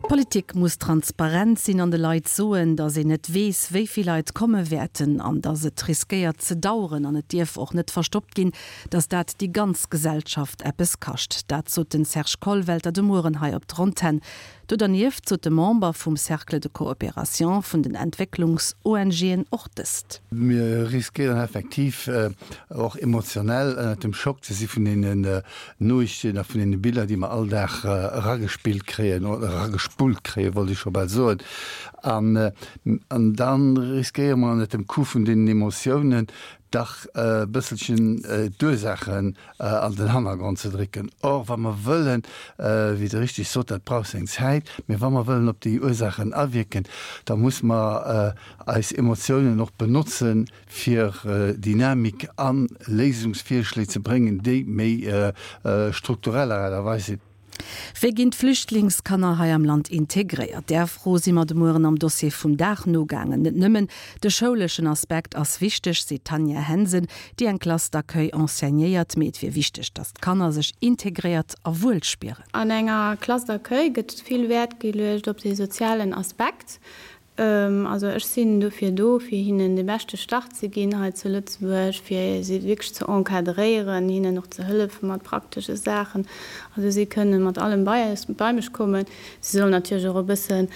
D'Politik muss transparent sinn an de Leit soen, datt een net weess, wéi vill Leit komme wäerten an datt et riskéiert ze daueren. An et dierf och net verstoppt ginn, datt dat déi ganz Gesellschaft eppes kascht. Dat sot den Serge Kollwelter de Mueren hei op der Antenn. Do dernieft sot de Member vum Cercle de coopération vun den Entwécklungs-ONGen och dëst. Mir riskéieren effektiv och emotionell ënnert dem Schock ze si vun deenen Noriichten a vun deene Biller, déi mer all Dag eragespillt kréien, oder eragespullt kréien, wollt ech scho bal soen. An, an da riskéiere mer ënnert dem Coup vun deenen Emotiounen dach e bësselchen d'Ursaachen an den Hannergrond ze drécken. Or, wa mer wëllen, wéi Der richtig sot, dat brauch seng Zäit, mä wa mer wëllen op déi Ursaachen awierken, da muss mer eis Emotiounen och benotzen, fir Dynamik a Léisungsvirschléi ze bréngen, déi méi struktureller Aart a Weis sinn. Wéi ginn d'Flüchtlingskanner hei am Land integréiert? Där Fro si mer de Mueren am Dossier vum Dag nogaangen. Net nëmmen de schouleschen Aspekt ass wichteg, seet d'Tanja Hensen, déi eng Classe d'accueil enseignéiert, mee et wier wichteg, datt d'Kanner sech integréiert a wuel spieren. An enger Classe d'accueil gëtt vill Wäert geluecht op de sozialen Aspekt. Also ech sinn dofir do, fir hinnen de beschte Start ze ginn hei zu Lëtzebuerg, fir si wierklech ze encadréieren, hinnen och ze hëllefe mat praktesche Saachen. Also si kënne mat allem bei eis, bei mech kommen. Si sollen natierlech och e bëssen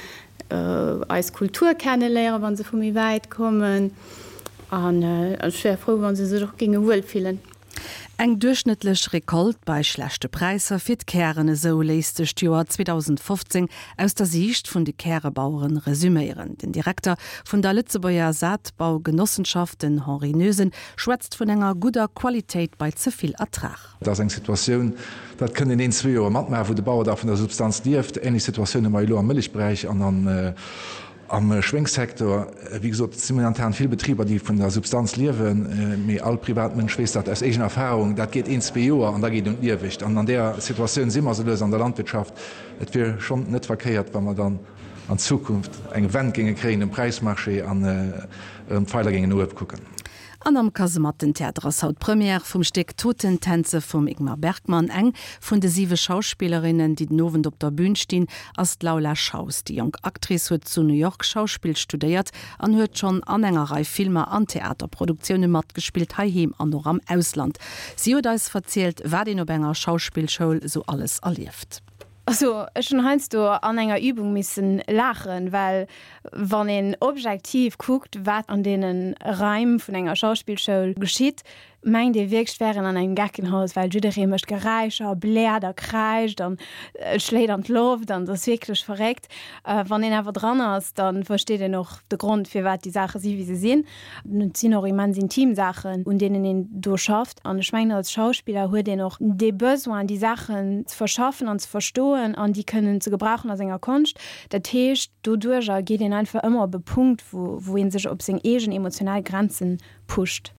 eis Kultur kenneléieren, wa se vu méi wäit kommen. An ech wär frou, wa se sech och géinge wuel fillen. Eng duerchschnëttlech Recolte bei schlechte Präisser fir d'Kären, esou léisst sech d'Joer 2015 aus der Siicht vun de Kärebaueren resüméieren. Den Direkter vun der Lëtzebuerger Saatbaugenossenschaft, den Henri Noesen, schwätzt vun enger gudder Qualitéit bei ze vill Ertrag. Dat ass eng Situatioun, dat kënnt een een, zwee Joer matmaachen, wou de Bauer da vun der Substanz lieft. Ähnlech Situatioun hu mer elo am Mëllechberäich an an Am Schwéngssecteur, wéi gesot, et si momentan vill Betriber, déi vun der Substanz liewen, mee all Privatmënsch weess dat aus eegener Erfahrung, dat geet een, zwee Joer an da geet un d'Liewegt. An an där Situatioun si mer esou lues an der Landwirtschaft. Et wier schonn net verkéiert, wa mer dann an Zukunft eng Wend géinge kréien um Präismarché an erëm d'Feiler géingen no uewe kucken. An am Kasemattentheater ass haut d'Première vum Stéck Totentänze vum Ingmar Bergman. Eng vun de siwe Schauspillerinnen, déi den Owend op der Bün stinn, ass d'Laula Schaus. Déi jonk Actrice huet zu New York Schauspill studéiert an huet schonn an enger Rei Filmer an Theaterproduktioune matgespillt, heiheem an och am Ausland. Si huet eis verzielt, wat een op enger Schauspillschoul sou alles erlieft. Also ech hunn heiansdo an enger Übung missen laachen, well wann een objektiv kuckt, wat an deene Raim vun enger Schauspillschoul geschitt, mengt ee wierklech, et wär een an engem Geckenhaus, well jidderee mécht Geräischer, bläert a kräischt an schléit an d'Loft an et ass wierklech verréckt. Wann een awer dran ass, da versteet een och de Grond, firwat déi Saache si wéi se sinn. Et sinn och immens intim Saachen, un deenen een do schafft. An ech mengen, als Schauspiller huet een och dee Besoin, déi Saachen ze verschaffen an ze verstoen an déi kënnen ze gebrauchen a senger Konscht. Dat heescht, doduerjer geet een einfach ëmmer op e Punkt, wou, wou ee sech op seng eegen emotional Grenzen pusht.